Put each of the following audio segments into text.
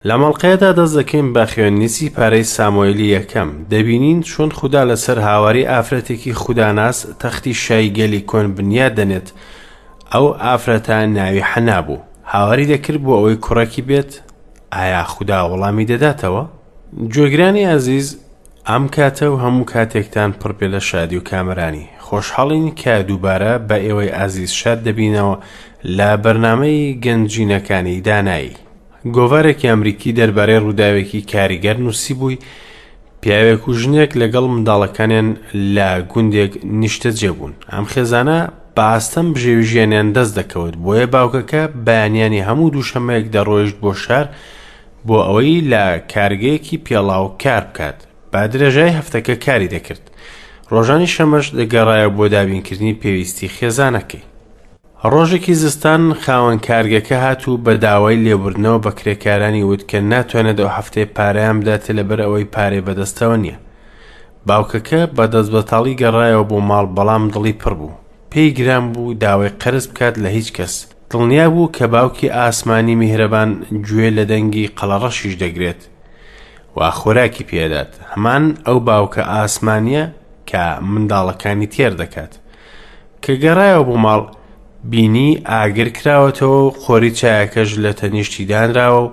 لەم ئەڵقەیەدا دەست دەکەین بە خوێندنی سیپارەی سامۆیلی یەکەم، دەبینین چۆن خودا لەسەر هاواری ئافرەتێکی خوداناس تەختی شای گەلی کۆن بنیات دەنێت، ئەو ئافرەتە ناوی حەنا بوو، هاواری دەکرد بۆ ئەوەی کوڕێکی بێت، ئایا خودا وەڵامی دەداتەوە؟ گوێگرانی ئازیز ئەم کاتە و هەموو کاتێکتان پڕ بێ لە شادی و کامەرانی، خۆشحاڵین کە دووبارە بە ئێوەی ئازیز شاد دەبینەوە لە بەرنامەی گەنجینەکانی دانایی. گۆڤارێکی ئەمریکی دەربارەی ڕووداوێکی کاریگەر نووسیبووی، پیاوێک و ژنێک لەگەڵ منداڵەکانیان لە گوندێک نیشتەجێ بوون. ئەم خێزانە بە ئاستەم بژێوی ژیانیان دەست دەکەوت، بۆیە باوکەکە بەیانیانی هەموو دووشەممەیەک دەڕۆیشت بۆ شار بۆ ئەوەی لە کارگەیەکی پێڵاو کار بکات. بە درێژای هەفتەکە کاری دەکرد. ڕۆژانی شەمەش دەگەڕایەوە بۆ دابینکردنی پێویستی خێزانەکەی. ڕۆژێکی زستان خاوەن کارگەکە هات و بە داوای لێبوردنەوە بە کرێکارانی وت کە ناتوانێت ئەو هەفتەیە پارەیان بداتێ لەبەر ئەوەی پارەی بەدەستەوە نییە. باوکەکە بە دەستبەتاڵی گەڕایەوە بۆ ماڵ بەڵام دڵی پڕ بوو. پێی گران بوو داوای قەرز بکات لە هیچ کەس. دڵنیا بوو کە باوکی ئاسمانی میهرەبان گوێ لە دەنگی قەڵەڕەشیش دەگرێت و خۆراکی پێدات. هەمان ئەو باوکە ئاسمانییە کە منداڵەکانی تێر دەکات. کە گەڕایەوە بۆ ماڵ، بینی ئاگر کراوەتەوە و قۆری چایەکەش لە تەنیشتی دانراوە و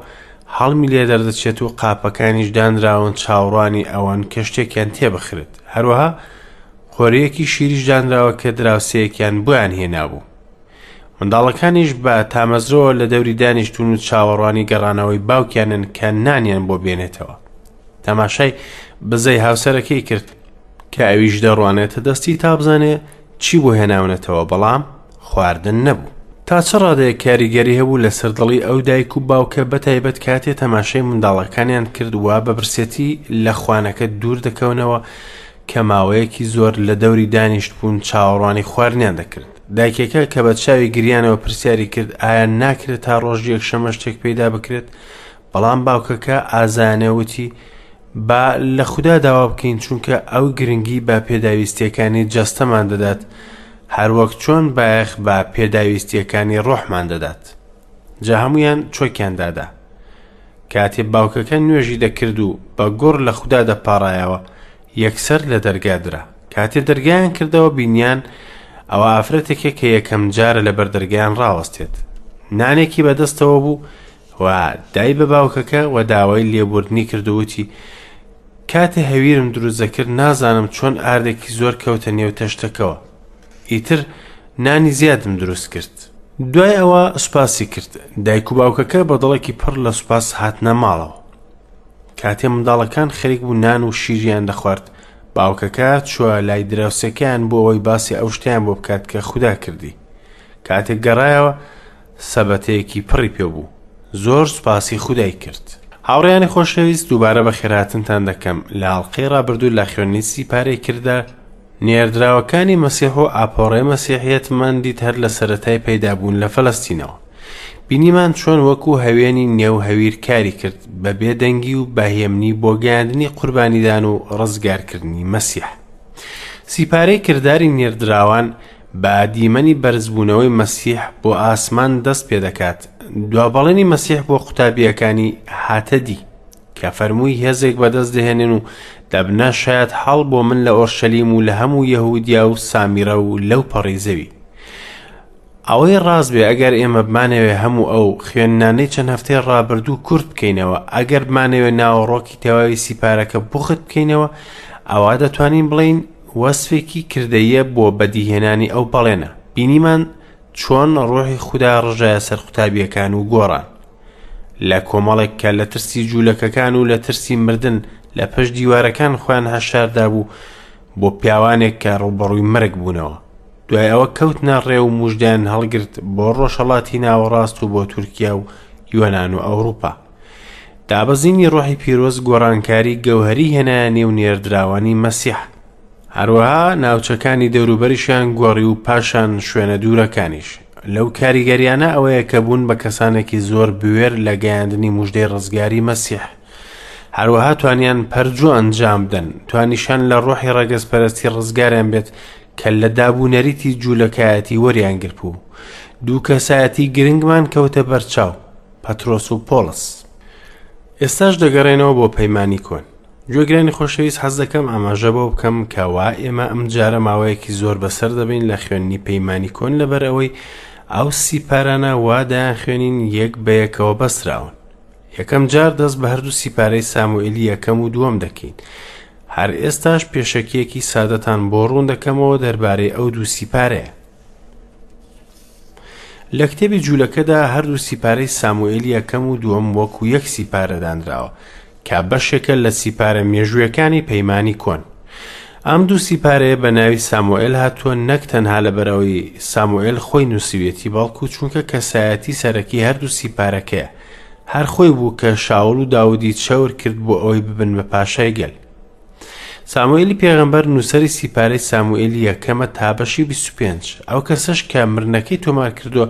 هەڵمی لێ دەردەچێت و قاپەکانیش دانراون چاوەڕوانی ئەوەن کە شتێکیان تێبخرێت. هەروەها قۆرییەکی شیریش دانراوە کە دراوسێیەکیان بۆیان هێنابوو. منداڵەکانیش بە تامەزرۆوە لە دەوری دانیشتوون و چاوەڕوانی گەڕانەوەی باوکیانن کە نانیان بۆ بێنێتەوە. تەماشای بزەی هاوسەرەکەی کرد کە ئەویش دەڕوانێتە دەستی تا بزانێ چی بۆ هێناونەتەوە بەڵام خواردن نەبوو. تا چ ڕادەیەک کاریگەری هەبوو لەسەر دڵی ئەو دایک و باوکە بەتایبەت کاتێ تەماشای منداڵەکانیان کرد وا بە برسێتی لە خوانەکە دوور دەکەونەوە کە ماوەیەکی زۆر لە دەوری دانیشتبوون چاوەڕوانی خواردنیان دەکرد. دایکەکە کە بە چاوی گریانەوە پرسیاری کرد ئایا ناکرێت تا ڕۆژی یەکشەممە شتێک پەیدا بکرێت؟ بەڵام باوکەکە ئازایانە وتی با لە خودا داوا بکەین چونکە ئەو گرنگی بە پێداویستیەکانی جەستەمان دەدات هەروەک چۆن بایەخ بە پێداویستیەکانی ڕۆحمان دەدات. جا هەمویان چۆکیان دادا. کاتێ باوکەکە نوێژی دەکرد و بە گوڕ لە خودا دەپاڕایەوە یەکسەر لە دەرگا درا. کاتێ دەرگایان کردەوە بینیان ئەوە ئافرەتێکە کە یەکەم جارە لەبەر دەرگایان ڕاوەستێت. نانێکی بەدەستەوە بوو و دای بە باوکەکە و داوای لێبوردنی کرد و وتی کاتێ هەویرم دروست دەکرد نازانم چۆن ئاردێکی زۆر کەوتە نێو تەشتەکەوە ئیتر نانی زیادم دروست کرد. دوای ئەوە سوپاسی کرد. دایک و باوکەکە بە دڵێکی پڕ لە سوپاس هاتنە ماڵەوە. کاتێ منداڵەکان خەریک بوو نان و شیریان دەخوارد، باوکەکە چووە لای دراوسێکەیان بۆ ئەوەی باسی ئەو شتەیان بۆ بکات کە خودا کردی. کاتێک گەڕایەوە، سەبەتەیەکی پڕی پێ بوو. زۆر سوپاسی خودای کرد. هاوڕێیانی خۆشەویست دووبارە بەخێرهاتنتان دەکەم لە ئەڵقەی ڕابردوو لە خوێندنی سیپارەی کردە نێردراوەکانی مەسیح و ئاپۆڕەی مەسیحیەتمان دیت هەر لە سەرەتای پەیدابوون لە فەلەستینەوە. بینیمان چۆن وەکو هەوێنی نێو هەویر کاری کرد بە بێدەنگی و بە هێمنی بۆ گەیاندنی قوربانیدان و ڕزگارکردنی مەسیح. سیپارەی کرداری نێردراوان بە دیمەنی بەرزبوونەوەی مەسیح بۆ ئاسمان دەست پێدەکات، دوا بەڵێنی مەسیح بۆ قوتابییەکانی هاتە دی، کە فەرمووی هێزێک بەدەست دەهێنن و دەبنە شایەت حاڵ بۆ من لە ئۆرشەلیم و لە هەموو یەهودیا و سامیرە و لەو پەڕی زەوی. ئەوەی ڕاست بێ ئەگەر ئێمە بمانەوێ هەموو ئەو خوێندنانەی چەند هەفتەی ڕابردوو کورت بکەینەوە، ئەگەر بمانەوێ ناوەڕۆکی تەواوی سیپارەکە بوخت بکەینەوە، ئەوا دەتوانین بڵێین وەسفێکی کردەییە بۆ بەدیهێنانی ئەو بەڵێنە. بینیمان چۆن ڕۆحی خودا ڕژایە سەر قوتابییەکان و گۆڕان. لە کۆمەڵێک کە لە ترسی جوولەکەکان و لە ترسی مردن لە پشت دیوارەکان خۆیان حەشاردابوو بۆ پیاوانێک کە ڕووبەڕووی مەرگ بوونەوە. دوای ئەوە کەوتنە ڕێ و موژدەیان هەڵگرت بۆ ڕۆژهەڵاتی ناوەڕاست و بۆ تورکیا و یۆنان و ئەوروپا. دابەزینی ڕۆحی پیرۆز گۆڕانکاری گەوهەری هێنایە نێو نێردراوانی مەسیح. هەروەها ناوچەکانی دەوروبەریشیان گۆڕی و پاشان شوێنە دوورەکانیش. لەو کاریگەریانە ئەوەیە کە بوون بە کەسانێکی زۆر بوێر لە گەیاندنی موژدەی ڕزگاری مەسیح. هەروەها توانیان پەرجوو ئەنجام بدەن، توانیشان لە ڕۆحی ڕەگەزپەرستی ڕزگاریان بێت کە لە دابونەریتی جوولەکایەتی وەریان گرتبوو. دوو کەسایەتی گرنگمان کەوتە بەرچاو، پەترۆس و پۆڵس. ئێستاش دەگەڕێنەوە بۆ پەیمانی کۆن. گوێگرانی خۆشەویست حەز دەکەم ئاماژە بەوە بکەم کە وا ئێمە ئەم جارە ماوەیەکی زۆر بەسەر دەبین لە خوێندنی پەیمانی کۆن لەبەر ئەوەی ئەو سیپارانە وا دەیانخوێنین یەک بە یەکەوە بەستراون. یەکەم جار دەست بە هەردوو سیپارەی ساموئێلی یەکەم و دووەم دەکەین. هەر ئێستاش پێشەکییەکی سادەتان بۆ ڕوون دەکەمەوە دەربارەی ئەو دوو سیپارەیە. لە کتێبی جوولەکەدا هەردوو سیپارەی ساموئێلی یەکەم و دووەم وەکو یەک سیپارە دانراوە کە بەشێکە لە سیپارە مێژوویەکانی پەیمانی کۆن. ئەم دوو سیپارەیە بە ناوی ساموئێل هاتووە نەک تەنها لەبەرئەوەی ساموئێل خۆی نووسیویەتی بەڵکو چونکە کەسایەتی سەرەکی هەردوو سیپارەکەیە هەر خۆی بوو کە شاول و داودی چەور کرد بۆ ئەوەی ببن بە پاشای گەل. ساموئێلی پێغەمبەر نووسەری سیپارەی ساموئێلی یەکەمە تا بەشی 25. ئەو کەسەش کە مرنەکەی تۆمار کردووە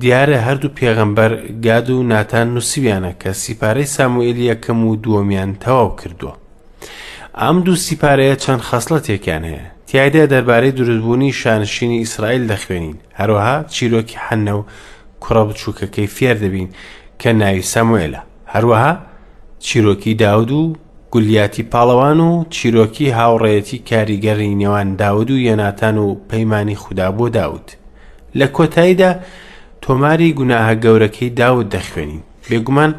دیارە هەردوو پێغەمبەر گاد و ناتان نووسیویانە کە سیپارەی ساموئێلی یەکەم و دووەمیان تەواو کردووە. ئەم دوو سیپارەیە چەند خەسڵەتێکیان هەیە. تیایدا دەربارەی دروستبوونی شانشینی ئیسرائیل دەخوێنین، هەروەها چیرۆکی حەنە و کوڕە بچووکەکەی فێر دەبین کە ناوی ساموئێلە. هەروەها چیرۆکی داود و گولیاتی پاڵەوان و چیرۆکی هاوڕێیەتی کاریگەری نێوان داود و یۆناتان و پەیمانی خودا بۆ داود. لە کۆتاییدا تۆماری گوناهە گەورەکەی داود دەخوێنین. بێگومان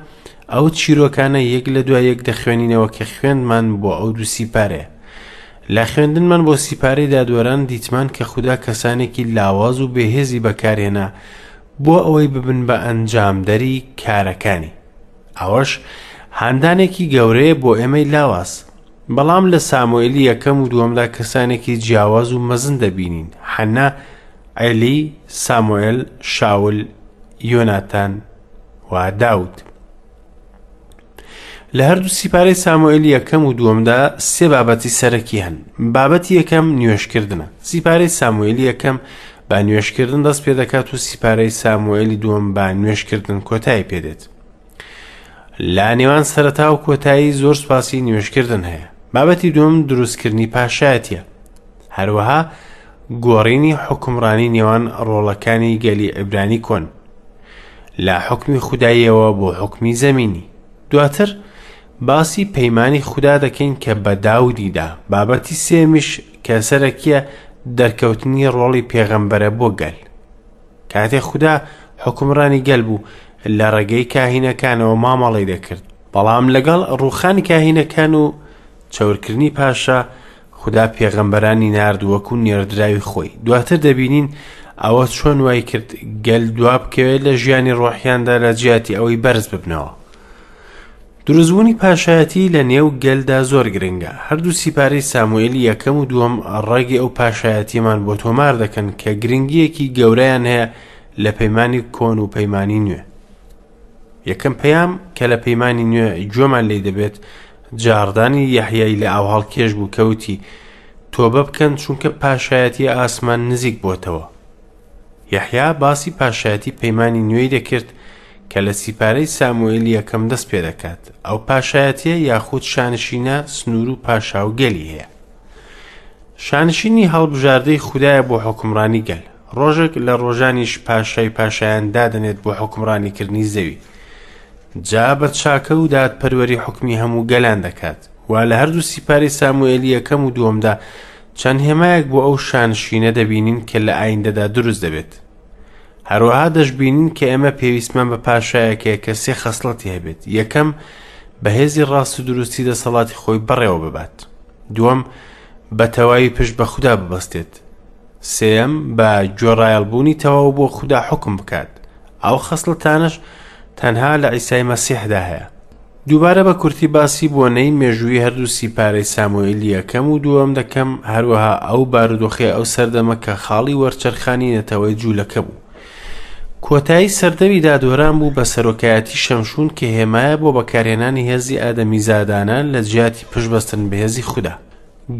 ئەو چیرۆکانە یەک لە دوای یەک دەخوێنینەوە کە خوێندمان بۆ ئەو دوو سیپارەیە. لە خوێندنمان بۆ سیپارەی دادوەران دیتمان کە خودا کەسانێکی لاواز و بێهێزی بەکارهێنا بۆ ئەوەی ببن بە ئەنجامدەری کارەکانی. ئەوەش هاندانێکی گەورەیە بۆ ئێمەی لاواز. بەڵام لە ساموئێلی یەکەم و دووەمدا کەسانێکی جیاواز و مەزن دەبینین، حەنا، عێلی، ساموئێل، شاول، یۆناتان و داود. لە هەردوو سیپارەی ساموئێلی یەکەم و دووەمدا سێ بابەتی سەرەکی هەن. بابەتی یەکەم نوێژکردنە. سیپارەی ساموئێلی یەکەم بە نوێژکردن دەست پێدەکات و سیپارەی ساموئێلی دووەم بە نوێژکردن کۆتایی پێدێت. لە نێوان سەرەتا و کۆتایی زۆر سوپاسی نوێژکردن هەیە. بابەتی دووەم دروستکردنی پاشایەتیە. هەروەها گۆڕینی حوکمڕانی نێوان ڕۆڵەکانی گەلی عیبرانی کۆن لە حوکمی خوداییەوە بۆ حوکمی زەمینی. دواتر باسی پەیمانی خودا دەکەین کە بە داودی دا. بابەتی سێمیش کە سەرەکیە دەرکەوتنی ڕۆڵی پێغەمبەرە بۆ گەل. کاتێک خودا حوکمڕانی گەل بوو لە ڕێگەی کاهینەکانەوە مامەڵەی دەکرد، بەڵام لەگەڵ ڕووخانی کاهینەکان و چەورکردنی پاشا خودا پێغەمبەرانی نارد وەکو نێردراوی خۆی. دواتر دەبینین ئەوە چۆن وای کرد گەل دوا بکەوێت لە ژیانی ڕۆحیاندا لە جیاتی ئەوەی بەرز ببنەوە. دروستبوونی پاشایەتی لە نێو گەلدا زۆر گرنگە. هەردوو سیپارەی ساموئێلی یەکەم و دووەم ڕەگی ئەو پاشایەتیەمان بۆ تۆمار دەکەن کە گرنگییەکی گەورەیان هەیە لە پەیمانی کۆن و پەیمانی نوێ. یەکەم پەیام کە لە پەیمانی نوێ گوێمان لێی دەبێت جاڕدانی یەحیای لە ئاوهەڵکێش بوو کە وتی تۆبە بکەن چونکە پاشایەتی ئاسمان نزیک بۆتەوە. یەحیا باسی پاشایەتی پەیمانی نوێی دەکرد کە لە سیپارەی ساموئێلی یەکەم دەست پێ دەکات. ئەو پاشایەتیە یاخود شانشینە سنوور و پاشا و گەلی هەیە. شانشینی هەڵبژاردەی خودایە بۆ حوکمڕانی گەل. ڕۆژێک لە ڕۆژانیش پاشای پاشایان دادەنێت بۆ حوکمڕانیکردنی زەوی. جا بە چاکە و دادپەروەری حوکمی هەموو گەلان دەکات. وا لە هەردوو سیپارەی ساموئێلی یەکەم و دووەمدا چەند هێمایەک بۆ ئەو شانشینە دەبینین کە لە ئایندەدا دروست دەبێت. هەروەها دەشبینین کە ئێمە پێویستمان بە پاشایەک هەیە کە سێ خەسڵەتی هەبێت. یەکەم، بە هێزی ڕاست و دروستی دەسەڵاتی خۆی بەڕێوە ببات. دووەم، بە تەواوی پشت بە خودا ببەستێت. سێیەم، بە گوێڕایەڵبوونی تەواو بۆ خودا حوکم بکات. ئەو خەسڵەتانەش تەنها لە عیسای مەسیحدا هەیە. دووبارە بە کورتی باسی بۆنەی مێژوویی هەردوو سیپارەی ساموئیلی یەکەم و دووەم دەکەم، هەروەها ئەو بارودۆخەی ئەو سەردەمە کە خاڵی وەرچەرخانی نەتەوەی جوولەکە بوو. کۆتایی سەردەمی دادوەران بوو بە سەرۆکایەتی شەمشون کە هێمایە بۆ بەکارهێنانی هێزی ئادەمیزادانە لە جیاتی پشتبەستن بە هێزی خودا.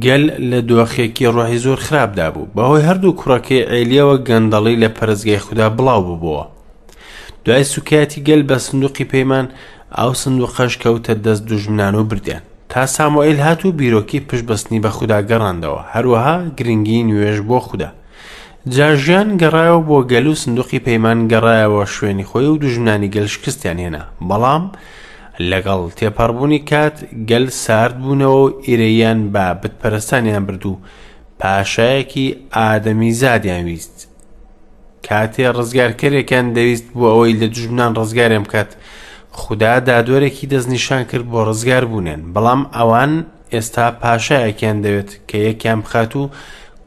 گەل لە دۆخێکی ڕۆحی زۆر خراپدا بوو. بەهۆی هەردوو کوڕەکەی عێلیەوە گەندەڵی لە پەرستگای خودا بڵاو ببۆوە. دوای سوکایەتی گەل بە سندوقی پەیمان، ئەو سندوقەش کەوتە دەست دوژمنان و بردیان. تا ساموئیل هات و بیرۆکەی پشتبەستنی بە خودا گەڕاندەوە، هەروەها گرنگی نوێژ بۆ خودا. جا ژیان گەڕایەوە بۆ گەل و سندوقی پەیمان گەڕایەوە شوێنی خۆی و دوژمنانی گەل شکستیان هێنا. بەڵام. لەگەڵ تێپەڕبوونی کات گەل سارد بوونەوە و ئیرەییان بە بتپەرستانیان برد و پاشایەکی ئادەمیزادیان ویست. کاتێ ڕزگارکەرێکیان دەویست بۆ ئەوەی لە دوژمنان ڕزگاریان بکات، خودا دادوەرێکی دەستنیشان کرد بۆ ڕزگاربوونیان، بەڵام ئەوان ئێستا پاشایەکیان دەوێت کە یەکیان بخات و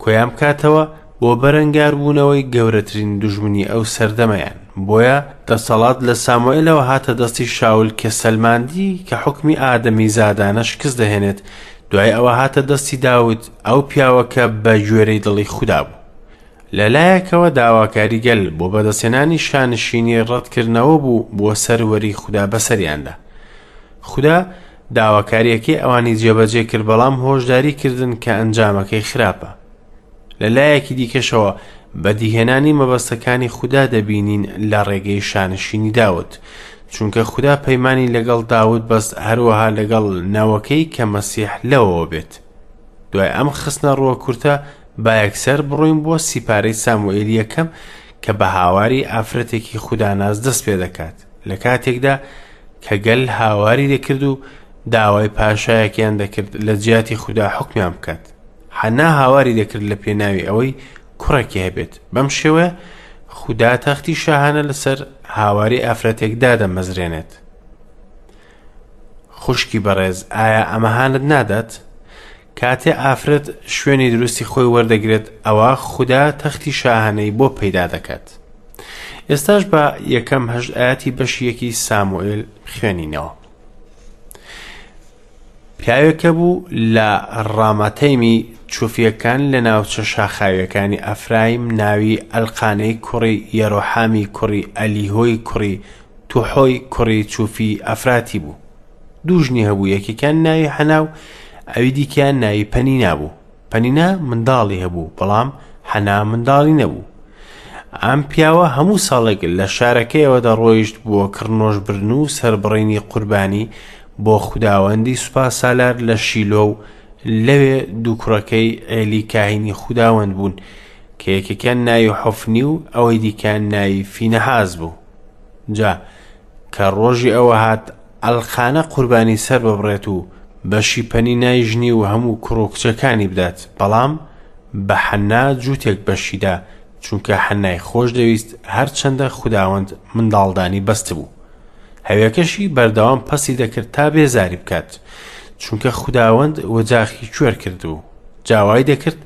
کۆیان بکاتەوە بۆ بەرەنگاربوونەوەی گەورەترین دوژمنی ئەو سەردەمەیان. بۆیە دەسەڵات لە ساموئێلەوە هاتە دەستی شاول کە سەلماندی کە حوکمی ئادەمیزادانە شکست دەهێنێت، دوای ئەوە هاتە دەستی داود، ئەو پیاوە کە بە گوێرەی دڵی خودا بوو. لە لایەکەوە داواکاری گەل بۆ بەدەستهێنانی شانشینی ڕەتکردنەوە بوو بۆ سەروەری خودا بەسەریاندا. خودا داواکارییەکەی ئەوانی جێبەجێ کرد بەڵام هۆشداری کردن کە ئەنجامەکەی خراپە. لە لایەکی دیکەشەوە بەدیهێنانی مەبەستەکانی خودا دەبینین لە ڕێگەی شانشینی داود، چونکە خودا پەیمانی لەگەڵ داود بەست هەروەها لەگەڵ نەوەکەی کە مەسیح لەوەوە بێت. دوای ئەم خستنە ڕووە کورتە با یەکسەر بڕۆین بۆ سیپارەی ساموئێلی یەکەم کە بە هاواری ئافرەتێکی خوداناس دەست پێ دەکات لە کاتێکدا کە گەل هاواری دەکرد و داوای پاشایەکیان دەکرد لە جیاتی خودا حوکمیان بکات. حەنا هاواری دەکرد لە پێناوی ئەوەی کوڕێکی هەبێت. بەم شێوەیە خودا تەختی شاهانە لەسەر هاواری ئافرەتێک دادەمەزرێنێت. خوشکی بەڕێز ئایا ئەمە هانت نادات؟ کاتێ ئافرەت شوێنی دروستی خۆی وەردەگرێت ئەوە خودا تەختی شاهانەی بۆ پەیدا دەکات. ئێستاش بە یەکەم هەشت ئاەتی بەشی یەکی ساموئێل خوێنینەوە. پیاوێک هەبوو لە ڕامەتەیمی چوفییەکان لە ناوچە شاخاوییەکانی ئەفرایم ناوی ئەلقانەی کوڕی یەرۆحامی کوڕی ئەلیهۆی کوڕی توحۆی کوڕی چوفی ئەفراتی بوو. دوو ژنی هەبوو یەکێکیان ناوی حەنا و ئەوی دیکەیان ناوی پەنینا بوو. پەنینا منداڵی هەبوو بەڵام حەنا منداڵی نەبوو. ئەم پیاوە هەموو ساڵێک لە شارەکەیەوە دەڕۆیشت بۆ کڕنۆشبردن و سەربڕینی قوربانی بۆ خوداوەندی سوپا سالار لە شیلۆ و لەوێ دوو کوڕەکەی عێلی کاهینی خوداوەند بوون کە یەکێکیان ناوی حۆفنی و ئەوەی دیکەیان ناوی فینەحاس بوو. جا کە ڕۆژی ئەوە هات ئەلقانە قوربانی سەر ببڕێت و بەشی پەنینای ژنی و هەموو کوڕ و کچەکانی بدات، بەڵام بە حەننا جووتێک بەشی دا، چونکە حەننای خۆش دەویست، هەرچەندە خوداوەند منداڵدانی بەستبوو. هەوێکەشی بەردەوام پەسی دەکرد تا بێزاری بکات، چونکە خوداوەند وەجاخی کوێر کردبوو. جا وای دەکرد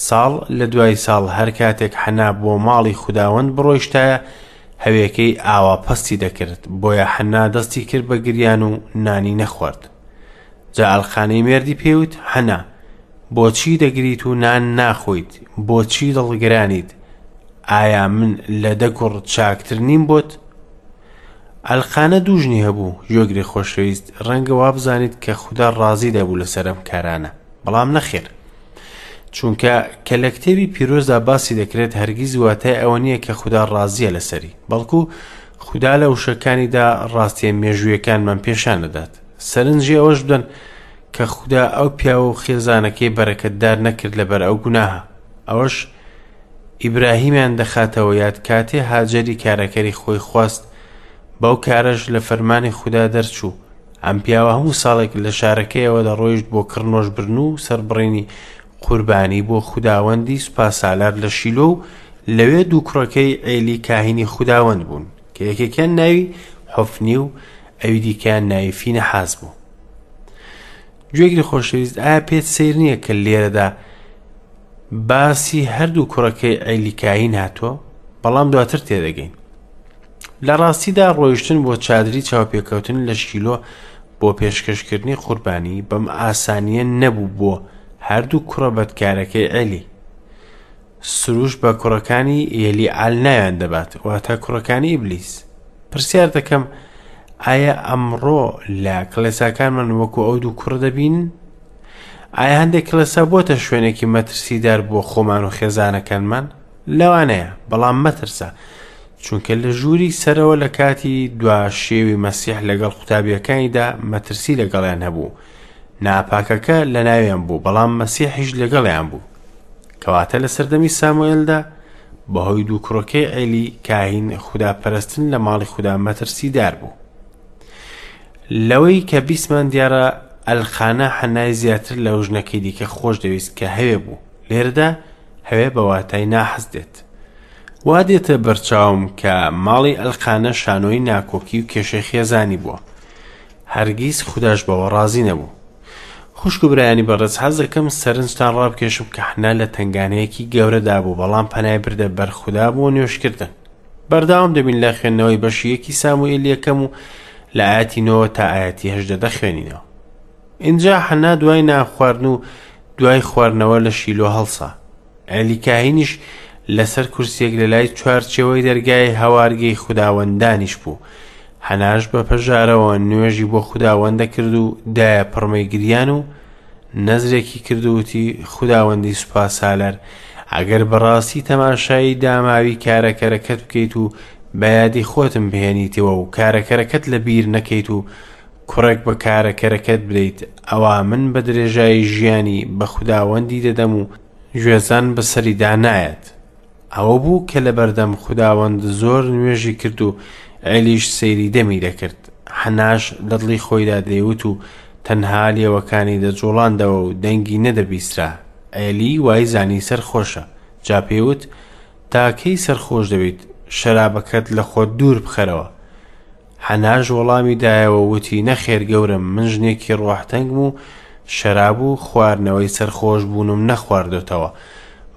ساڵ لە دوای ساڵ هەر کاتێک حەنا بۆ ماڵی خوداوەند بڕۆیشتایە، هەوێکەی ئاوا پەستی دەکرد، بۆیە حەنا دەستی کرد بە گریان و نانی نەخوارد. جا ئەلقانەی مێردی پێی وت، حەنا، بۆچی دەگریت و نان ناخۆیت؟ بۆچی دڵگرانیت؟ ئایا من لە دە کوڕ چاکتر نیم بۆت؟ ئەلقانە دوو ژنی هەبوو، گوێگری خۆشەویست، ڕەنگە وابزانیت کە خودا ڕازی دەبوو لەسەر ئەم کارانە، بەڵام نەخێر. چونکە کە لە کتێبی پیرۆزدا باسی دەکرێت هەرگیز واتای ئەوە نییە کە خودا ڕازیە لەسەری بەڵکو خودا لە وشەکانیدا ڕاستیە مێژوویەکانمان پێشان دەدات سەرنجی ئەوەش بدەن کە خودا ئەو پیاوە و خێزانەکەی بەرەکەتدار نەکرد لەبەر ئەو گوناهە ئەوەش ئیبراهیمیان دەخاتەوە یاد کاتێ هاجەری کارەکەری خۆی خواست بەو کارەش لە فەرمانی خودا دەرچوو ئەم پیاوە هەموو ساڵێک لە شارەکەیەوە دەڕۆیشت بۆ کڕنۆشبردن و سەربڕینی قوربانی بۆ خوداوەندی سوپاسالار لە شیلۆ و لەوێ دوو کوڕەکەی عێلی کاهینی خوداوەند بوون کە یەکێکیان ناوی حۆفنی و ئەوی دیکەیان ناوی فینەحاس بوو. گوێگری خۆشەویست ئایا پێت سەیر نییە کە لێرەدا باسی هەردوو کوڕەکەی عێلی کاهین هاتووە بەڵام دواتر تێدەگەین لە ڕاستیدا ڕۆیشتن بۆ چادری چاوپێکەوتن لە شیلۆ بۆ پێشکەشکردنی قوربانی بەم ئاسانییە نەبوو بۆ هەردوو کوڕە بەدکارەکەی عێلی. سروش بە کوڕەکانی یەلیعال ناویان دەبات، واتە کوڕەکانی ئیبلیس. پرسیار دەکەم ئایا ئەمڕۆ لە کڵێساکانمان وەکو ئەو دوو کوڕە دەبینن؟ ئایا هەندێک کڵێسا بۆتە شوێنێکی مەترسیدار بۆ خۆمان و خێزانەکانمان؟ لەوانەیە، بەڵام مەترسە، چونکە لە ژووری سەرەوە لە کاتی دوا شێوی مەسیح لەگەڵ قوتابیەکانیدا مەترسی لەگەڵیان هەبوو ناپاکەکە لە ناویان بوو بەڵام مەسیحیش لەگەڵیان بوو کەواتە لە سەردەمی ساموئێلدا بەهۆی دوو کوڕەکەی عێلی کاهین خودا پەرستن لە ماڵی خودا مەترسیدار بوو. لەوەی کە بیستمان دیارە ئەلقانە حەنای زیاتر لەو ژنەکەی دیکە خۆش دەویست کە هەوێ بوو. لێرەدا هەوێ بە واتای ناحەز دێت. وا دێتە بەرچاوم کە ماڵی ئەلقانە شانۆی ناکۆکی و کێشەی خێزانی بووە. هەرگیز خوداش بەوە ڕازی نەبوو. خوشک و برایانی بەڕێز حەز دەکەم سەرنجتان ڕابکێشم کە حەنا لە تەنگانەیەکی گەورەدا بوو بەڵام پەنای بردە بەر خودا بۆ نوێژکردن. بەردەوام دەبین لە خوێندنەوەی بەشی یەکی ساموئیل یەکەم و لە ئاەتی نۆوە تا ئاەتی هەژدە دەخوێنینەوە. ئینجا حەنا دوای نان خواردن و دوای خواردنەوە لە شیلۆ هەڵسا. عێلی کاهینیش لەسەر کورسیەک لە لای چوارچێوەی دەرگای هەوارگەی خوداوەندانیش بوو. حەناش بە پەژارەوە نوێژی بۆ خوداوەند دەکرد و دایە پڕمەی گریان و نەزرێکی کرد و وتی خوداوەندی سوپاسالار ئەگەر بەڕاستی تەماشای داماوی کارەکەرەکەت بکەیت و بە یادی خۆتم بهێنیتەوە و کارەکەرەکەت لە بیر نەکەیت و کوڕێک بە کارەکەرەکەت بدەیت ئەوا من بە درێژایی ژیانی بە خوداوەندی دەدەم و گوێزان بەسەریدا نایەت. ئەوە بوو کە لەبەردەم خوداوەند زۆر نوێژی کرد و عێلیش سەیری دەمی دەکرد. حەناش لە دڵی خۆیدا دەیوت و تەنها لێوەکانی دەجوڵاندەوە و دەنگی نەدەبیسترا. عێلی وای زانی سەرخۆشە. جا پێی وت، تا کەی سەرخۆش دەبیت؟ شەرابەکەت لە خۆت دوور بخەرەوە. حەناش وەڵامی دایەوە و وتی، نەخێر گەورەم، من ژنێکی ڕۆحتەنگم و شەراب و خواردنەوەی سەرخۆشبوونم نەخواردۆتەوە،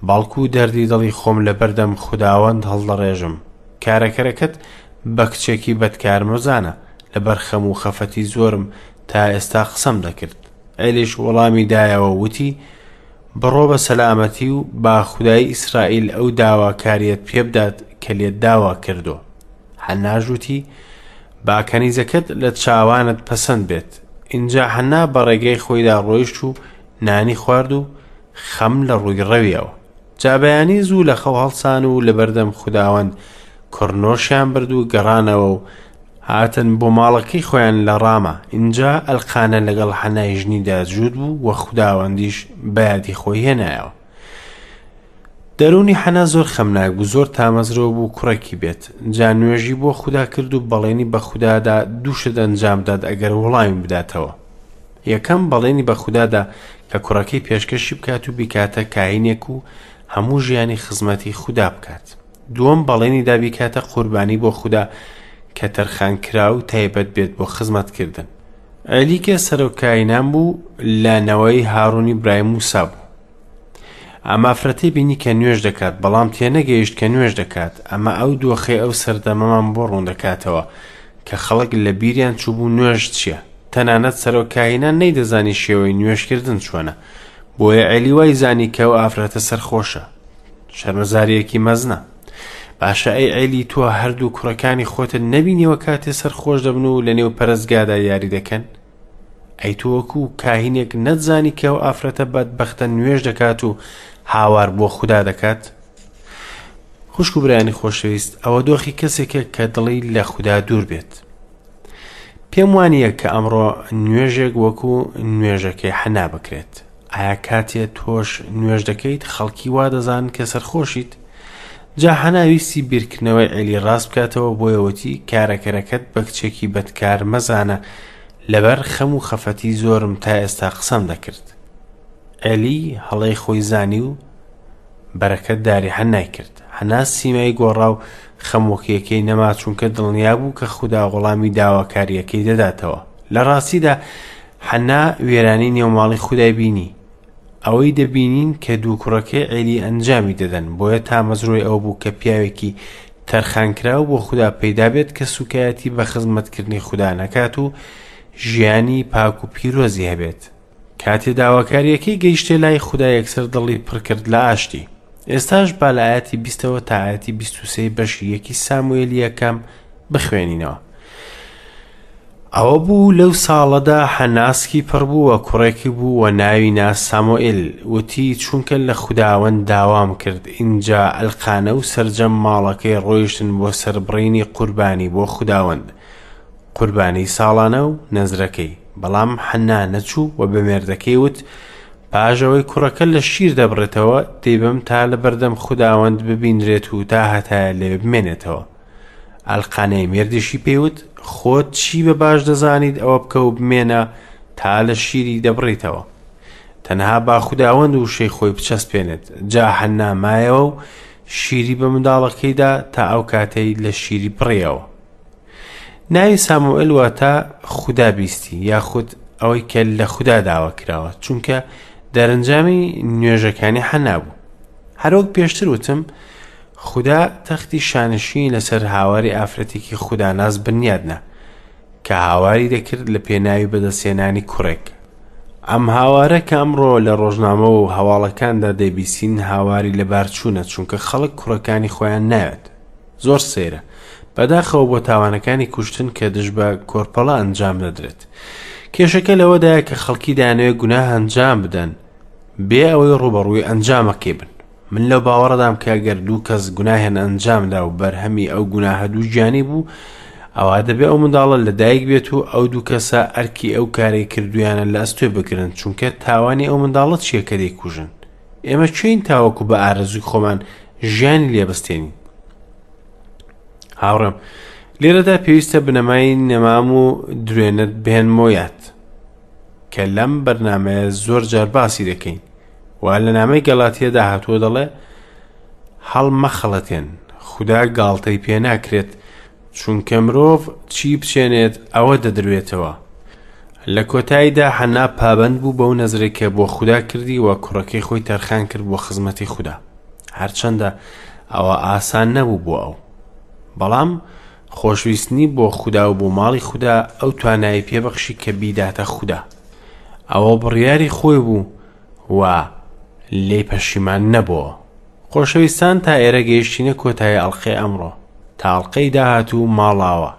بەڵکو دەردی دڵی خۆم لەبەردەم خوداوەند هەڵدەڕێژم. کارەکەرەکەت بە کچێکی بەدکار مەزانە، لەبەر خەم و خەفەتی زۆرم تا ئێستا قسەم دەکرد. عێلیش وەڵامی دایەوە و وتی، بڕۆ بە سەلامەتی و با خودای ئیسرائیل ئەو داواکارییەت پێبدات کە لێت داوا کردووە. حەناش وتی، با کەنیزەکەت لە چاوانت پەسەند بێت. ئینجا حەنا بە ڕێگەی خۆیدا ڕۆیشت و نانی خوارد و خەم لە ڕووی ڕەویەوە. جا بەیانی زوو لە خەو هەڵسان و لەبەردەم خوداوەند کڕنۆشیان برد و گەڕانەوە و هاتن بۆ ماڵەکەی خۆیان لە ڕامە. ئینجا ئەلقانە لەگەڵ حەنای ژنیدا جووت بوو و خوداوەندیش بە یادی خۆی هێنایەوە. دەروونی حەنا زۆر خەمناک بوو، زۆر تامەزرۆ بوو کوڕێکی بێت. جا نوێژی بۆ خودا کرد و بەڵێنی بە خودا دا دوو شت ئەنجام بدات ئەگەر وەڵامی بداتەوە. یەکەم، بەڵێنی بە خودا دا کە کوڕەکەی پێشکەشی بکات و بیکاتە کاهینێک و هەموو ژیانی خزمەتی خودا بکات. دووەم، بەڵێنی دا بیکاتە قوربانی بۆ خودا کە تەرخانکراو و تایبەت بێت بۆ خزمەتکردن. عێلی کە سەرۆک کاهینان بوو لە نەوەی هارونی برای موسا بوو. ئەم ئافرەتەی بینی کە نوێژ دەکات بەڵام تێنەگەیشت کە نوێژ دەکات ئەمە ئەو دۆخەی ئەو سەردەمەمان بۆ ڕوون دەکاتەوە کە خەڵک لە بیریان چووبوو نوێژ چییە تەنانەت سەرۆک کاهینان نەیدەزانی شێوەی نوێژکردن چۆنە بۆیە عێلی وای زانی کە ئەو ئافرەتە سەرخۆشە شەرمەزاریەکی مەزنە باشە ئەی عێلی تۆ هەردوو کوڕەکانی خۆتت نەبینیوە کاتێ سەرخۆش دەبن و لەنێو پەرستگادا یاری دەکەن ئەی تۆ وەکو کاهینێک نەتزانی کە ئەو ئافرەتە بەدبەختە نوێژ دەکات و هاوار بۆ خودا دەکات؟ خوشک و برایانی خۆشەویست ئەوە دۆخی کەسێکە کە دڵی لە خودا دوور بێت. پێم وانییە کە ئەمڕۆ نوێژێک وەکو نوێژەکەی حەنا بکرێت. ئایا کاتێ تۆش نوێژ دەکەیت خەڵکی وا دەزانن کە سەرخۆشیت؟ جا حەنا ویستی بیرکردنەوەی عێلی ڕاست بکاتەوە بۆیە وتی کارەکەرەکەت بە کچێکی بەدکار مەزانە لەبەر خەم و خەفەتی زۆرم تا ئێستا قسەم دەکرد. عێلی هەڵەی خۆی زانی و بەرەکەت داری حەنای کرد. حەنا سیمای گۆڕا و خەمۆکیەکەی نەما چونکە دڵنیا بوو کە خودا وەڵامی داواکارییەکەی دەداتەوە. لە ڕاستیدا حەنا وێرانی نێوماڵی خودای بینی. ئەوەی دەبینین کە دوو کوڕەکەی عێلی ئەنجامی دەدەن، بۆیە تامەزرۆی ئەوە بوو کە پیاوێکی تەرخانکراو بۆ خودا پەیدا بێت کە سوکایەتی بە خزمەتکردنی خودا نەکات و ژیانی پاک و پیرۆزی هەبێت. کاتێ داواکارییەکەی گەیشتە لای خودا یەکسەر دڵی پڕ کرد لە ئاشتی. ئێستاش با لە ئایەتی بیستەوە تا ئایەتی 23 بەشی یەکی ساموئێلی یەکەم بخوێنینەوە. ئەوە بوو لەو ساڵەدا حەنا سکی پڕ بوو و کوڕێکی بوو و ناوی نا سامۆئیل، وتی، چونکە لە خوداوەند داوام کرد. ئینجا ئەلقانە و سەرجەم ماڵەکەی ڕۆیشتن بۆ سەربڕینی قوربانی بۆ خوداوەند، قوربانی ساڵانە و نەزرەکەی. بەڵام حەنا نەچوو و بە مێردەکەی وت، پاش ئەوەی کوڕەکە لە شیر دەبڕێتەوە، دەیبەم تا لەبەردەم خوداوەند ببینرێت و تاهەتایە لەوێ بمێنێتەوە. ئەلقانەی مێردیشی پێی وت، خۆت چی بە باش دەزانیت ئەوە بکە و بمێنە تا لە شیری دەبڕیتەوە. تەنها با خوداوەند وشەی خۆی بچەسپێنێت. جا حەننا مایەوە و شیری بە منداڵەکەی دا تا ئەو کاتەی لە شیری بڕیەوە. ناوی ساموئێل واتە خودا بیستی یاخود ئەوەی کە لە خودا داوا کراوە، چونکە دەرەنجامی نوێژەکانی حەنا بوو. هەروەک پێشتر وتم، خودا تەختی شانشینی لەسەر هاواری ئافرەتێکی خوداناس بنیادنا کە هاواری دەکرد لە پێناوی بەدەستهێنانی کوڕێک. ئەم هاوارە کە ئەمڕۆ لە ڕۆژنامە و هەواڵەکاندا دەیبیستین هاواری لەبارچوونە، چونکە خەڵک کوڕەکانی خۆیان ناوێت. زۆر سەیرە. بەداخەوە بۆ تاوانەکانی کوشتن کە دژ بە کۆرپەڵە ئەنجام دەدرێت. کێشەکە لەوەدایە کە خەڵکی دەیانەوێت گوناه ئەنجام بدەن بێ ئەوەی ڕووبەڕووی ئەنجامەکەی بن. من لەو باوەڕەدام کە گەر دوو کەس گوناهیان ئەنجامدا و بەرهەمی ئەو گوناهە دووگیانی بوو، ئەوا دەبێ ئەو منداڵە لە دایک بێت و ئەو دوو کەسە ئەرکی ئەو کارەی کردویانە لە ئەستۆی بگرن، چونکە تاوانی ئەو منداڵە چییە کە دەیکوژن؟ ئێمە کێین تاوەکو بە ئارەزووی خۆمان ژیانی لێ بستێنین؟ هاوڕێم لێرەدا پێویستە بنەمای نەمام و درێنت بهێنمەوە یاد کە لەم بەرنمەیە زۆر جار باسی دەکەین و لە نامەی گەڵاتیەدا هاتووە دەڵێ هەڵمەخەڵەتێن خودا گاڵتەی پێ ناکرێت چونکە مرۆڤ چی بچێنێت ئەوە دەدروێتەوە لە کۆتاییدا حەنا پابەند بوو بەو نەزرەی کە بۆ خودا کردی و کوڕەکەی خۆی تەرخان کرد بۆ خزمەتی خودا هەرچەندە ئەوە ئاسان نەبوو بۆ ئەو بەڵام خۆشویستنی بۆ خودا و بۆ ماڵی خودا ئەو توانایی پێبەخشی کە بیداتە خودا ئەوە بڕیاری خۆی بوو و لێی پەشیمان نەبۆوە. خۆشەویستان تا ئێرە گەیشتینە کۆتایی ئەڵقەی ئەمڕۆ. تا ئەڵقەی داهاتوو ماڵاوا.